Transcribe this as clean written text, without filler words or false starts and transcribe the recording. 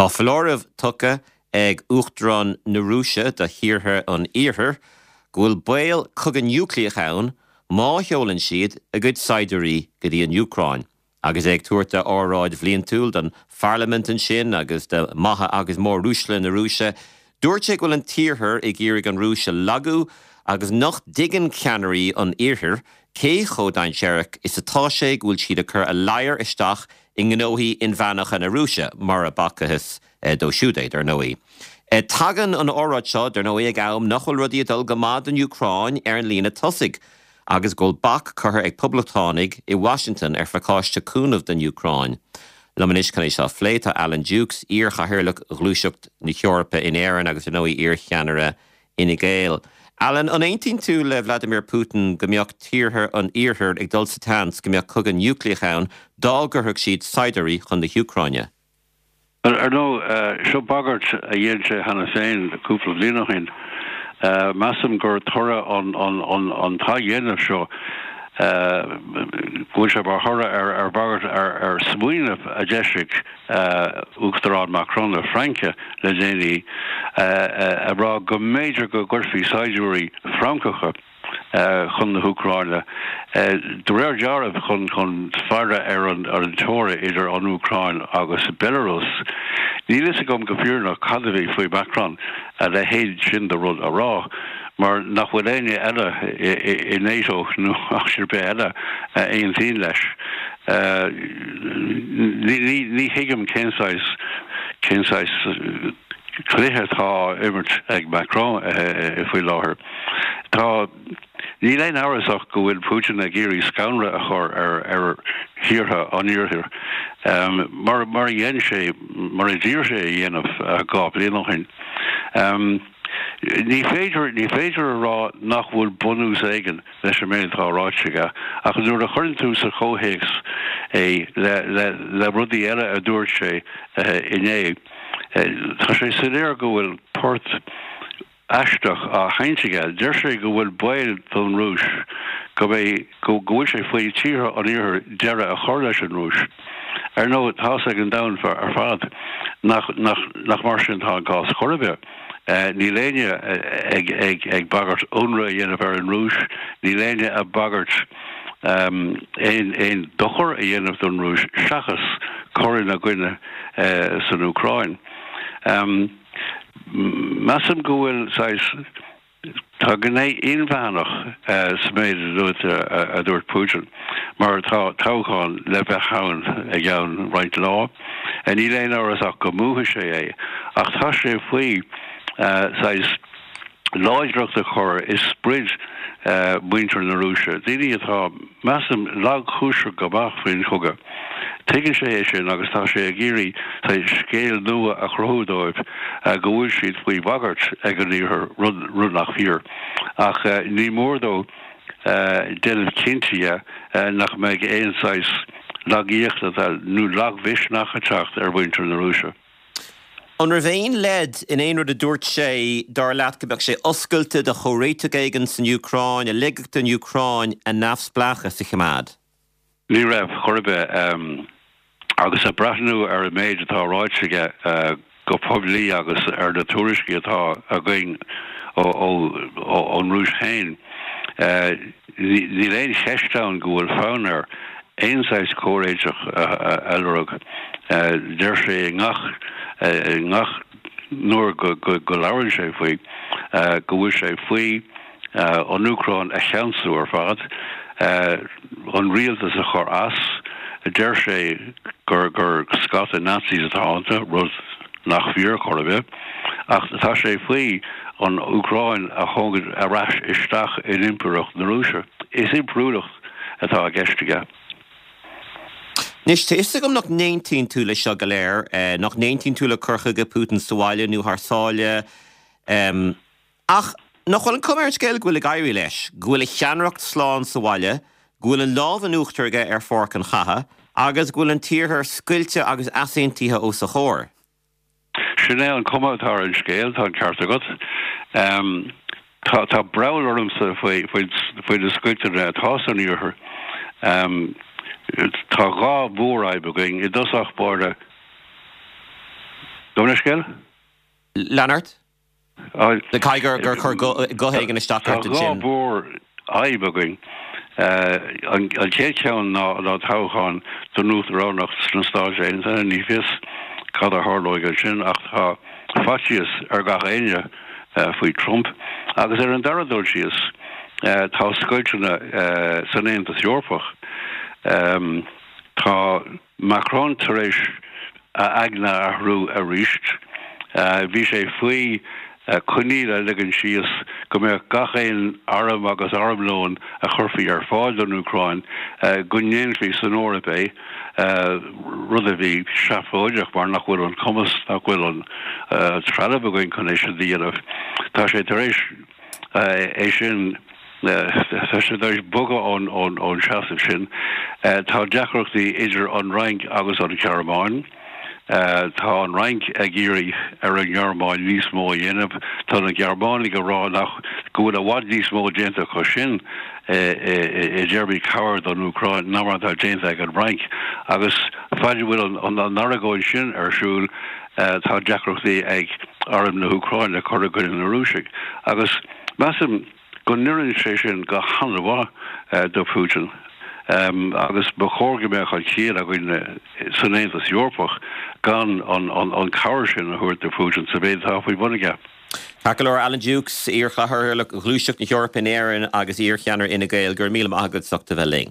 Tá foláireamh tugtha ag Uachtarán na Rúise do thíortha an Iarthair go bhfuil baol cogadh núicléach ann má sheolann siad a gcuid saighdiúirí go dtí an Úcráin. Agus é ag tabhairt a óráid bhliantúil don pharlaimint ansin agus do maithe agus móruaisle na Rúise, dúirt sé go bhfuil an tIarthar ag iarraidh an Rúis a lagú agus nach dtuigeann ceannairí an Iarthair cé chomh dainséarach is atá sé go bhfuil siad ag cur a ladhar isteach i ngnóthaí inmheánacha na Rúise, mura bhfacthas dó siúd é, dar ndóigh. Tagann an óráid seo, dar ndóigh, ag am nach bhfuil rudaí ag dul go maith don Úcráin ar an líne tosaigh. agus go bhfuil bac curtha ag Poblachtánaigh i Washington ar phacáiste cúnaimh don Úcráin. Liom anois chun é seo a phlé tá Alan Dukes, iar-chathaoirleach Ghluaiseacht na hEorpa in Éirinn agus ar ndóigh iar-cheannaire Fhine Gael. Alan, an aontaíonn tú le Vladimir Putin go mbeadh tíortha an Iarthair ag dul sa tseans go mbeadh cogadh núicléach ann dá gcuirfeadh siad saighdiúirí chun na hÚcráine? Ar ndóigh, seo bagairt a dhein sé cheana féin cúpla bliain ó shin. Measaim gur toradh an t-athdhéanamh seo, go bhfuil sé mar thoradh ar bhagairt, ar smaoineamh a d'eisigh Uachtarán Macron na Fraince le déanaí, ag rá go mb'fhéidir go gcuirfí saighdiúirí Francacha, chun na hÚcráine, de réir dealraimh chun faire ar an teora idir an Úcráin agus Belarus. Níl fhios agam go fírinneach cad a bhí faoi Macron a leithéid sin de rud a rá, mar nach bhfuil éinne eile i NATO nó áit ar bith eile a aontaíonn leis. Ní thuigim cén saghas, cén saghas cluiche atá á imirt ag Macron faoi láthair. Tá, níl aon amhras ach go bhfuil Putin ag iarraidh scanradh a chur ar ar thíortha an Iarthair, mar mar a dhein sé, mar a d'iarr sé a dhéanamh 2 bliain ó shin. Ní féidir, ní féidir a rá nach bhfuil bunús éigin leis an méid atá ráite aige, ach nuair a chuireann tú sa chomhthéacs é le le le rudaí eile a dúirt sé inné, tá sé soiléir go bhfuil port aisteach á sheinnt aige. Deir sé go bhfuil baol don Rúis go mbeidh, go bhfuil sé faoi tíortha an Iarthair deireadh a chur leis an Rúis. Ar ndóigh, tá's ag an domhan ar fad nach, nach, nach mar sin atá an cás chor ar bith. Níl éinne ag, ag, ag bagairt ionradh a dhéanamh ar an Rúis, níl éinne ag bagairt aon, aon dochar a dhéanamh don Rúis seachas cur ina gcoinne san Úcráin. Measaim go bhfuil saghas, tá gné inmheánach sa méid a dúirt Putin, mar tá toghchán le bheith ann i gceann roinnt lá. Níl aon amhras ach go mbuafaidh sé é, ach tá sé faoi saghas láidreacht a chur i sprid mhuintir na Rúise, daoine atá, measaim, lagchúiseach go maith faoin chogadh. Tuigeann sé é sin agus tá sé ag iarraidh saghas scéal nua a chruthú dóibh go bhfuil siad faoi bhagairt ag an Iarthar, rud nach fíor. Ach ní mór dó déanamh cinnte dhe nach mbeidh aon saghas lagaíochta nó lagmhisneach ag teacht ar mhuintir na Rúise. An raibh aon leid in aon rud a dúirt sé, dar leat, go mbeadh sé oscailte do chomhréiteach éigin san Úcráin, a ligfeadh don Úcráin a neamhspleáchas a choimeád? Ní raibh, chor ar bith. Agus ag breathnú ar an méid atá ráite aige go poiblí agus ar na tuairiscí atá againn ón Rúis féin, Níl aon cheist ann go bhfuil fonn air aon saghas comhréiteach a lorg. Deir sé i ngach i ngach uair go labhrann sé faoi go bhfuil sé faoi an Úcráin a cheansú ar fad, an rialtas a chur as. Deir sé gur gur scata Nazis atá iontu, rud nach fíor chor ar bith, ach tá sé faoi an Úcráin a thógaint ar ais isteach in Impireacht na Rúise. Is impiriúlacht atá i gceist aige. Anois, tá fhios agam nach n-aontaíonn tú leis seo go léir, nach n-aontaíonn tú le cur chuige Putin sa bhaile nó thar sáile. Ach nach bhfuil an cuma ar an scéal go bhfuil ag éirí leis, go bhfuil a cheannaireacht slán sa bhaile, go bhfuil an lámh in uachtar aige ar pháirc an chatha, agus go bhfuil an tIarthar scoilte agus easaontaithe os a chomhair? Sin é an cuma atá ar an scéal, tá an ceart agat. Tá tá breall ormsa faoi faoi faoi na scoilteanna atá san Iarthar. Tá dhá mhórfhadhb againn. I dtosach báire. Gabh mo leithscéal? Lean ort. Caithfidh gur chuir guth éigin isteach ort ansin. Tá dhá mhórfhadhb againn. An chéad cheann ná toghchán don uachtaránacht sna Stáit Aontaithe. Ní fios cad a tharlóidh ansin ach tá faitíos ar gach éinne faoi Trump. Agus ar an dara dul síos, tá scoilteanna san Aontas Eorpach. Tá. Macron tar éis a aigne a athrú arís. Bhí sé faoi choinníoll a ligean síos go mbeadh gach aon arm agus armlón a chuirfí ar fáil don Úcráin, go ndéanfaí san Eoraip é, rud a bhí seafóideach mar nach bhfuil an cumas, nach bhfuil an trealamh againn chun é sin a dhéanamh. Tá sé tar éis. é sin, tá sé tar éis bogadh ón seasamh sin. Tá deacrachtaí idir an Fhrainc agus an Ghearmáin. Tá an Fhrainc ag iarraidh ar an nGearmáin níos mó a dhéanamh. Tá na Gearmánaigh ag rá nach go bhfuil i bhfad níos mó déanta acu sin i dtéarmaí cabhair don Úcráin ná mar atá déanta ag an bhFrainc. Agus fad a bhfuil an argóint sin ar siúl, Tá deacrachtaí ag arm na hÚcráine cur i gcoinne na Rúisigh agus measaim go n-oireann sé sin go han-mhaith do Putin agus ba chóir go mbeadh an chiall againn san Aontas Eorpach gan an cabhair sin a thabhairt do Putin sa mhéid atá faoi bhun aige. Ceart go leor, Alan Dukes, iar-chathaoirleach Ghluaiseacht na hEorpa in Éirinn agus iar-cheannaire Fhine Gael, go raibh míle maith agat as ucht a bheith linn.